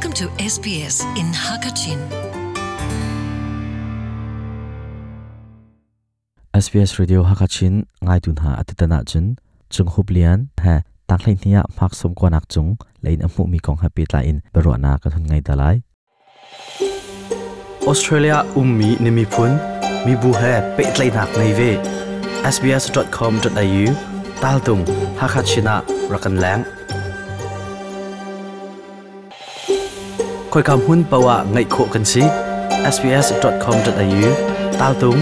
Welcome to SBS in Hakachin. SBS Radio Hakachin ngaitu hna atutan ahcun Cung Hup Lian he tanghlei hnih ah hmak sawm kuanak cung lein a hmuhmi kong he pehtlai in biaruahnak kan hun ngei ta lai. Australia ummi na miphun, mibu he pehtlaihnak ngei ve. sbs.com.au taltung Hakha Chin ah rak kan leng. Khoika hmun paoh ah ngaih khawh kan si. sbs.com.au taltung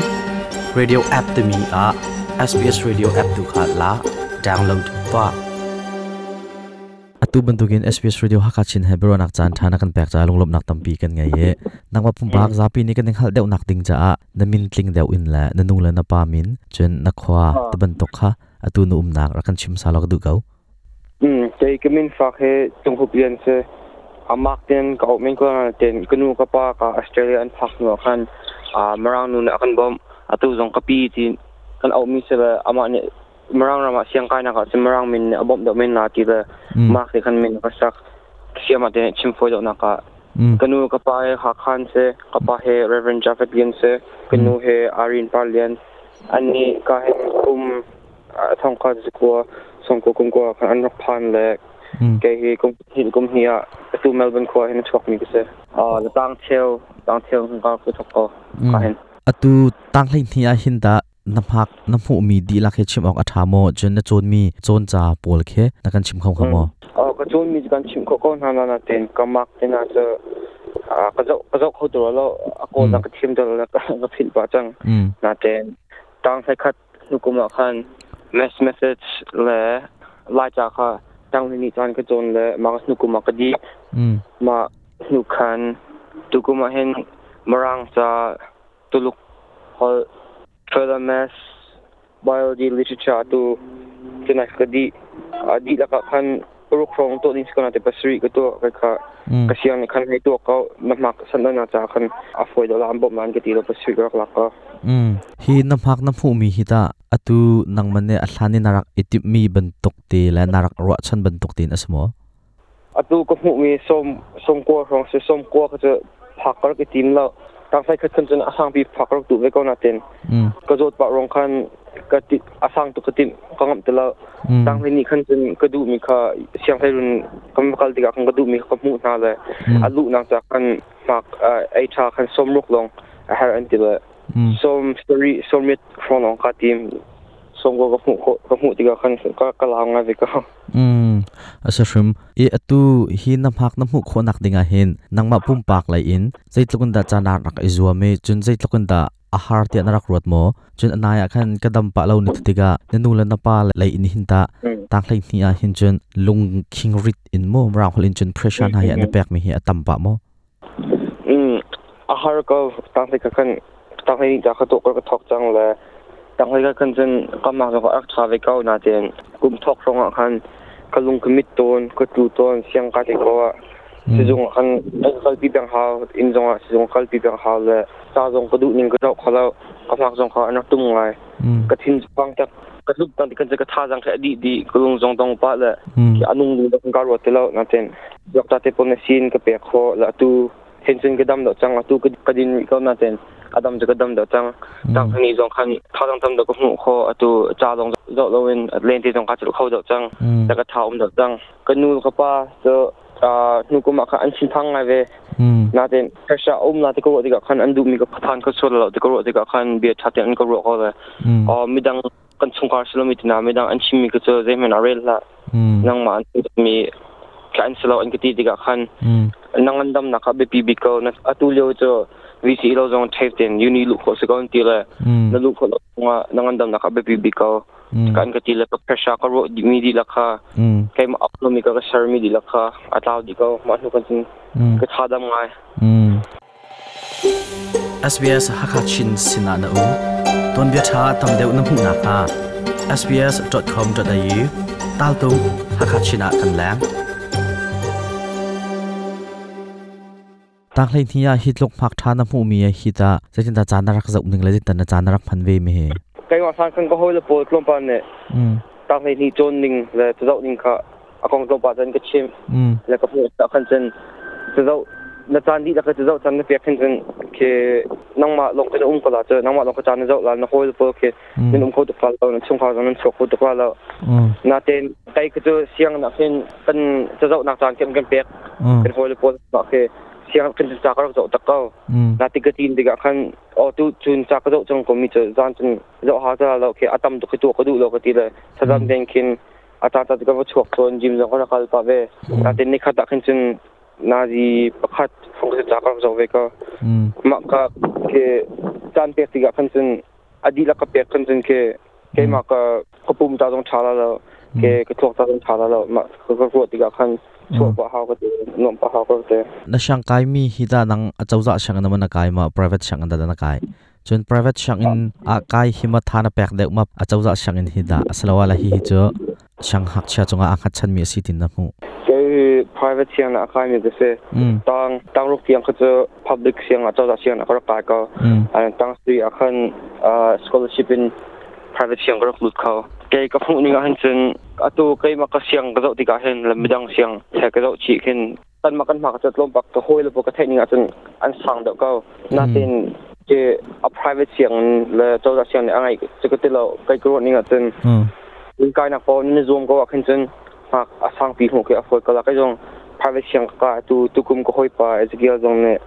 radio app timi ah SBS Radio app tu kha la download tuah. Atu bantukin SBS Radio Hakha Chin he biaruahnak caan ṭha na kan pek caah lunglawmhnak tampi kan ngei i nangmah pumpak zapi nih kan in hngalh deuhnak ding caah na min tling deuh in le na nu le na pa min cun na khua ti bantuk kha atu na umnak rak kan chim sa law ka duh ko. Kei ka min fak hi Cung Hup Lian si. Amak ten ka auh men ko na ten ka nu ka pa ka Australia an phak hnu ah khan Mirang nu nih a kan bawmh. Atu zong ka pi ti kan auhmi si le amah nih Mirang ram ah siangkainak ah cun Mirang min nih a bawmh deuh men la ti le Mark nih khan min a ka sak. Siam ah te chim fawi deuhnak ah ka nu ka pa he Hakha an si, ka pa he Reverend Jafet Lian si, ka nu he Irene Par Lian. Annih ka hin kum thongkhat zakua sawmkua kum kua khan an rak phan le kei hi kum hnih kum hnih ah atu Melbourne khua hin a chuakmi ka si. Tang cheu tang cheu ka ku thok ko ka hin. Atu tang hlei hnih ah hin dah na hmak na hmuhmi dihlak hi chim awk a ṭha maw cun na cawnmi cawnca pawl khi na kan chim kho kha maw? Ka cawnmi cu kan chim khawh ko hna na nain ka mark te hna cu ka zoh ka zoh kho tu lo a kawl na ka thiam tu lo ka philh pah cang nain tang hlei khat hnu kum ah khan mass message le Laica kha tang hnih caan ka cawn le mah hnu kum ah ka dih mah hnu khan tukum ah hin Mirang ca Tuluk holh, further maths, biology, literature tu cunai ka dih. A dihlak ah khan paruk hrawng tuah ding si ko na te pasarih ka tuah kai kha ka siang nih khan hei tuah ko na hmak san na ca khan a fawi deuh la an bawmh lan ka ti lo pasarih ka rak lak ko. Hi na hmak na hmuhmi hi tah atu nangman nih a hlan in na rak i timhmi bantuk te le na rak ruahchan bantuk tein a si maw? Atu ka hmuhmi sawm sawmkua hrawng si sawmkua kha cu phak ka rak i tim lo. Tangfai khat khan cun a sangpi phak ka rak duh ve ko nain ka zawt pah ruang khan ka ti a sang tuk ka timh ka ngamh ti lo. Tanghlei nih khan cun ka duhmi kha sianghleirun kan va kal tikah khan ka duhmi kha ka hmuh hna le a luhnak ca khan hmak ei ṭha khan sawmruk lawng a herh an ti le sawm sarih sawmriat hrawng lawng kaa tim. Sawmkua ka hmuh khawh ka hmuh tikah khan ka ka lau ngai ve ko. A si hrim. I atu hi na hmak na hmuh khawhnak dingah hin nangmah pumpak lei in zeitluk in dah ca na rak i zuam i cun zeitluk in dah a har tiah na rak ruat maw? Cun a nai ah khan ka dam pah lo ni tikah na nu le na pa lei in hin tah tang hleihnih ah hin cun lungkhing rit in maw mirang holh in cun pressure hna hi an i pekmi hi a tam pah maw? A har ko. Tang hlei ka khan tang hlei ca ka tuah ka thawk cang le tang hlei ka khan cun ka mak zong a rak ṭha ve ko nain kum thawk hrawng ah khan ka lung ka mit tawn ka tlu tawn siang ka te ko ah sizung ah khan ka kalpi peng hau inn zong ah sizung kalpi peng hau le ca zong ka duh ning ka zoh kho lo ka hmak zong kha an rak tum ngai ka thin pang tak ka tluk tan kan ka thazang kha a dih dih ka lung zong dong pah le a nung ding ka ruat ti lo nain Doctor te pawl na sin ka pek khawh la atu hen cun ka dam deuh cang atu ka din rih ko nain a dam cu ka dam deuh cang tang ni zong khan thazang tam deuh ka hmuh khawh atu ca zong zoh loin lente zong ka celh kho deuh cang la ka tha um deuh cang ka nu ka pa cu hnu kum ah khan an thinphang ngai ve nain pressure um na ti ka ruah tikah khan an duhmi ka phan ka sual lo ti ka ruah tikah khan bia ṭha tein an ka ruah ko le midang kan chungkhar silomi tina midang an chimmi ka cu zeihmanh ah rel hlah nangmah an mi ka an silo an ka ti tikah khan nang an damnak kha biapi bik ko atu lio cu VC lo zong tape ten uni luh khawh si ko an ti le na luh khawh lo zongah nang an damnak kha biapi bik ko kan ka ti le ka pressure ka ruah mi dihlak kha keimah up lomi ka ka share mi dihlak kha a tlau dih ko mah hnu kan cun ka tha dam ngai. SBS Hakha Chin sinah na um. Tuanbia ṭha tam deuh na hmuh nakhnga sbs.com.au taltung Hakha Chin ah kan leng. Tang hleihnih ah hi tluk hmak ṭha na hmuhmi hi tah zeitindah caan na rak zoh ning le zeitindah na caan na rak hman ve mi hi? Keimah hlan khan ka hawile pawl tlawmpal nih tang hleihnih cawn ning le cazoh ning kha a kong tlawmpal cun ka chimh le ka hmuh tak khan cun Zo na caan dih lak zo caan na pek hin cun ke nangmah lawng te na um ko la cu nangmah lawng ka caan na zoh la na hawi pawl ke nan um kho tuk la lo, na chungkhar zong nan chuak kho tuk la lo. Natein kai ka cu siang nak hin kan cazoh nak caan kan pek kan hawi pawl ma ke siang kan ca ka rak zoh tak ko. Na ti ka tin tikah khan o tu chun ca ka zoh cang ko mi cu zan cun zoh ha ta lo ke atam tuk tu ka duh lo ka ti le thazam den khin ata ta ka va chuak chon gym zong ka kal pa ve. Natein ni khat ah khin cun nazi pakhat phong ka ca ka rak zoh ve ko. Ma ka ke caan pek tikah khan cun adi la ka pek khan cun ke keimah ka ka pum ta zong tha la lo, ke ka thluak ta zong tha la lo. Ma ka ka ruah tikah khan chuah pa hau ka ti, nuam pa hau ka ti. Na siang kai mi hi da nang achawza siang na man na kai ma private siang da na kai, chun private siang in a kai hi ma tha na pek deuh ma achawza siang in hi da asalawa la hi hi chu siang hak chia chunga a khat chan mi asi tin na mu? Ke private siang na kai mi ka se tang tang ruk tiang kha chu public siang a chawza siang na ka rak kai ko. An tang sui a khan scholarship in private siang ka rak lut kho. Ke ka hmuh ning ah hin cun atu keimah ka siang ka zoh tikah hin le midang siang he ka zoh chih khin kan ma kan ma ka tlawm pak ka hawi le ka theih ning ah cun an sang deuh ko. Natin ke a private siang le chawza siang nih a ngai cu ka ti lo. Kai ka ruah ning ah cun kai nak pawl ni zuam ko ah khin cun hmak a sang pi hmuh ke a fawi ko la. Kai zong private siang ka tu tukum ka hawi pa Ezekiel zong nih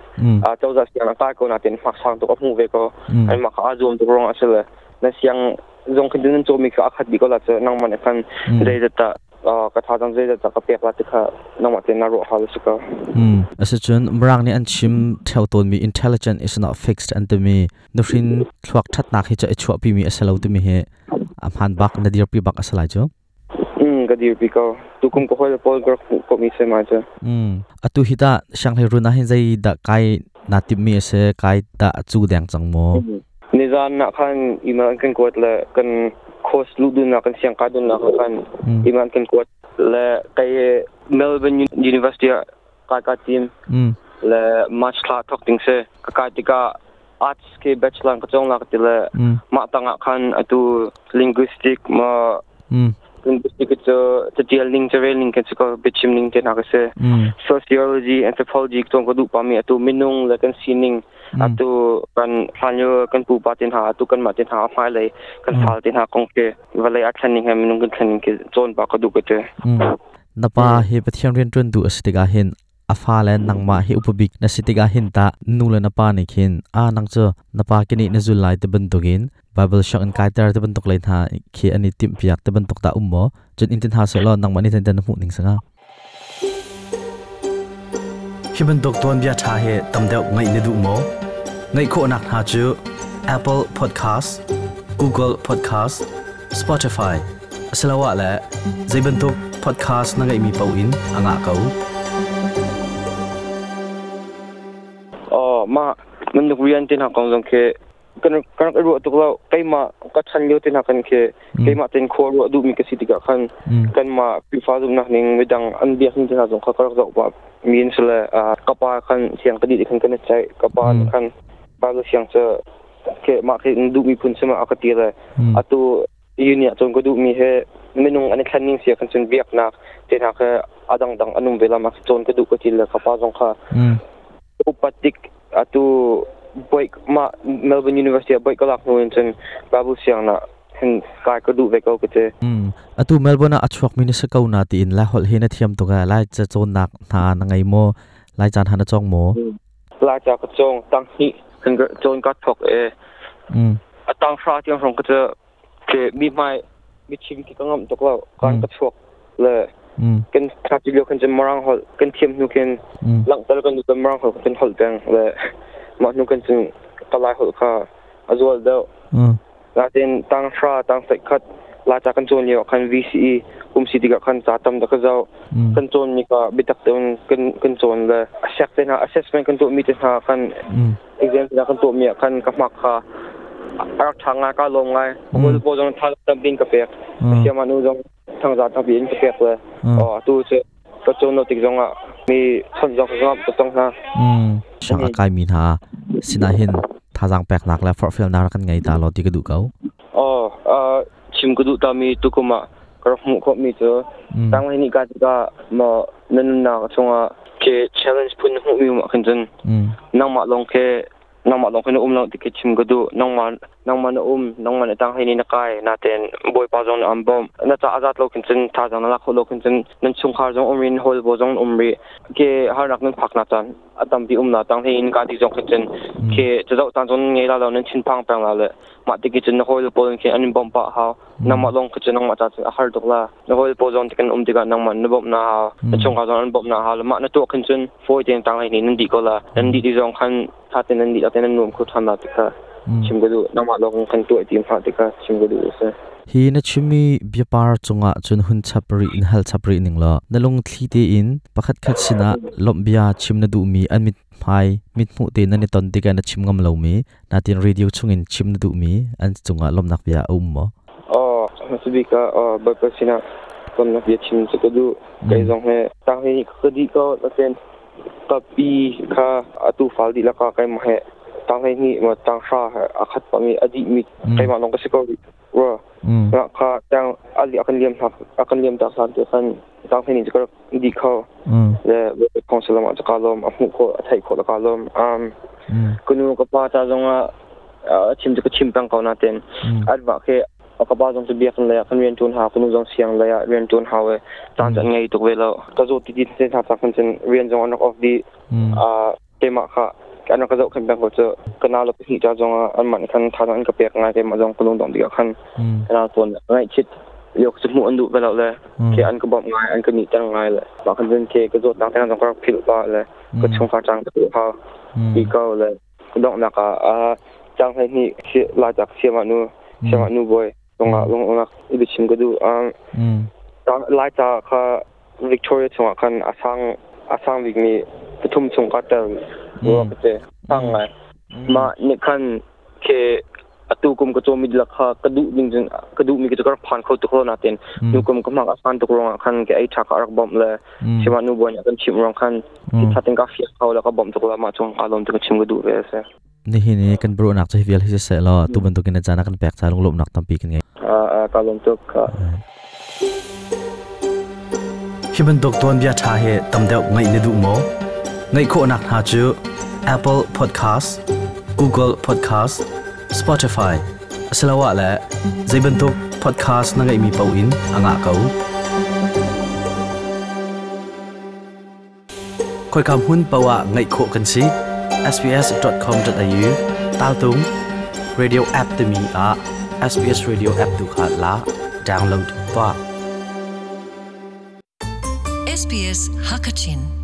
a chawza siang a kai ko, natin hmak sang tuk a hmuh ve ko. An mah kha a zuam tuk ruang a si le na siang zong khin nan cawmi kha a khat dih ko la cu nangmah nih khan zeizat dah ka tha zong zeizat dah ka pek la ti kha nangmah tein na ruah hal a si ko. Asicun Mirang nih an chim theo tawnmi "intelligent is not fixed" an timi, nuhrin thluak thatnak hi cu i chuahpi mi a si lo timi hi a hmaan bak, na dirpi bak a si lai cu. Ka dirpi ko. Tukum ka hawi le pawl ka rak hmuh ko mi si ma cu. Atu hi ta sianghlei run ah hin zei dah kai naa timh mi a si, kai dah cu deng cang maw? Nizan nak khan email an kan kuat le kan course luh dun nak, kan siang kai dun nak khan email an kan kuat le kai Melbourne University ah kai ka tim le March thla thok ding si. Ka kai tikah arts ke bachelor ka chong la ka ti le mah tangah khan atu linguistic ma linguistic cu catial ning carel ning kan si ko, biachim ning te hna ka si. Sociology, anthropology chong ka duh pa mi atu minung le kan sining, atu kan hlanlio kan pupa te hna, atu kan mah te hna, hmai lei kan fal te hna kong ke vawlei a thlen ning he minung kan thlen ning ke cawn pa ka duh ka ti. Na pa hi Pathian rian ṭuan duh a si tikah hin a fa le nangmah hi upabik na si tikah hin ta nu le na pa nih khin a nang cu na pa kini na zul lai ti bantukin Bible shak in kaiter ti bantuk lei hna khi an i timh piak ti bantuk ta um maw? Cun in tin ha se law nangmah nih ten na hmuh ning sanga? Hi bantuk tuanbia ṭha hi tam deuh ngaih na duh maw? Ngaih khawhnak hna cu Apple Podcast, Google Podcast, Spotify asiloah le zei bantuk podcast na ngeihmi paoh in a ngah ko. Oh, mah man rian te hna kong zong khi kan kan rak ruah tuk lo. Keimah ka chan lio te hna kan khi keimah ten khua ruah duhmi ka si tikah khan kanmah Khrihfa zumhnak ning, midang an biak ning te hna zong kha ka rak zoh pah mi an si le ka pa khan siang ka dih khan kan i ceih. Ka pa nih khan Bible siang cu ke mah khi duhmi phun si ma a ka ti le atu uni ah cun ka duhmi he minung an i thlen ning sia kan cun biaknak te hna kha a dangdang an um ve la ma cawn ka duh ka ti le ka pa zong kha upat tik atu boy ma Melbourne University ah boy ka lak hnu in cun Bible siang na hin kai ka duh ve ko ka ti. Atu Melbourne ah a chuak mi na si ko na tiin lai holh hi na thiam tuk e. Lai ca cawnnak hna na ngei maw? Lai caan ha na cawng maw? Lai ca ka cawng, tang hnih kan cawn ka thok e. A tang hra tiang hrawng ka cu ke mi hmai mi chim ki ka ngam tuk lo kan ka chuak le kan tha ti lio kan cun marang holh kan thiam hnu khin langhter kan kan marang holh kan holh peng le mah hnu kan cun ka lai holh kha a zual deuh. Natin tang hra tang sai khat la cha kan cawn lio khan VCE kum si tikah khan ca tam da ka zau kan cawn mi ka bitak te kan kan cawn le asek te hna, assessment kan tuah mi te hna khan, exam te kan tuah mi ah khan ka hmak kha a rak ṭha ngai, ka lawm ngai. Kul pawl zong tha tampi in ka pek, siama nu zong thangza tampi in ka pek le atu cu ka cawn lo tik zong ah mi chawnh zong ka ngam ka tong hna. Sang a kai mi hna sinah hin thazaang peknak le forhfialnak kan ngei ta lo ti ka duh ko. Oh, chim ka duh ta mi tukum ah ka rak hmuh khawh mi cu tang ni ka tikah ma na nunnak chungah Ke challenge phun hmuh mi um khin cun nangmah lawng ke nangmah lawng khin um lo ti ke chim ka duh. Nangmah nangmah na um, nangmah na tang ni na kai na ten Bawipa zong na am bom na cha azat lo khin cun, tha zong na lak kho lo khin cun, nan chungkhar zong um rin hol bo zong um ri ke harnak nan phak na chan atam pi um na tang hein ka ti zong khin cun ke chazau tan zong ngei la lo, nan chin phang peng la le ma ti ki cun na hol pol khin an bom pa hau. Nangmah lawng khin cun nangmah cha cun a har tuk la. Na hol pol zong tikan um tikah nangmah na bom na hau, na chungkhar zong an bom na hau. Ma na tuah khin cun foi ten tang ni nan di ko la, nan di ti zong khan tha ten nan di ten nan nuam khu than la ti kha chim ka duh. Nangmah lawng khan tuah ti ma ti kha chim ka duh se. Hi na chimi biapar chunga chun hun chapri in hal chapri ning lo, nalung thli te in pakhat khat sina lombia chim na du mi, an mit hmai mit mu te na ni ton tika na chim ngam lo mi, na tin radio chungin chim na du mi, an chunga lomnak bia um mo? Oh, masibika oh ba sina ton na bia chim chu ka du. Kai zong he tang hi ka di ko na ten ka pi kha atu fal di la ka kai ma he tang hi ni ma tang sha akhat pa mi adi mi kai ma long ka si ko wa ra kha tang ali akan liam ha akan liam ta san te khan tang hi ni ka di kho le council ma ka lom a mu ko a thai ko la ka lom kunu ka pa ta zong a chim ka chim pang ko na ten adwa ke ka pa zong chu biak le kan rian tun ha, kunu zong siang le rian tun ha we chan chan ngei tuk ve lo ka zo ti ti te tha ta kan chen rian zong anak off di a tema kha kan ka zo khan bang ko chu kana lo hi cha zong an man khan tha an ka pek ngai te ma zong kulung dong di khan kana ton ngai chit yok chu mu an du ve lo le ke an ka bom ngai an ka ni tang ngai le ma khan chen ke ka zo tang tang zong ka phil pa le ka chung kha chang ka ha bi ko le dong na ka a chang hai ni la chak siama nu siama nu boy long long nak ibi chim ka du lai cha kha Victoria chunga khan asang asang bik mi pathum chung ka tel ro ka te sang ngai ma ni khan ke atu kum ka chomi la kha ka du ding jing ka du mi ka ka phan kho tu kho na ten nu kum ka mak asan tu rong khan ke ai tha ka rak bom le sima nu boy kan chim rong khan ki thatin ka fia kho la ka bom tu la ma chung ka lom tu ka chim ka du ve se. Ni hi ni kan bro nak chai vial hi se lo tu ban tu kin chana kan pek cha lung lom nak tampi kan ngai. A ka lom tu ka. Hi bantuk tuan bia tha he tam deuh ngai ne du mo? Ngai kho nak ha chu Apple Podcast, Google Podcast, Spotify asalawa la zaibantuk podcast na ngai mi pau in anga kau khoi kam hun pawa ngai kho kan si sbs.com.au tal tung radio app te mi a SBS radio app tu kha la download pa. SBS Hakachin.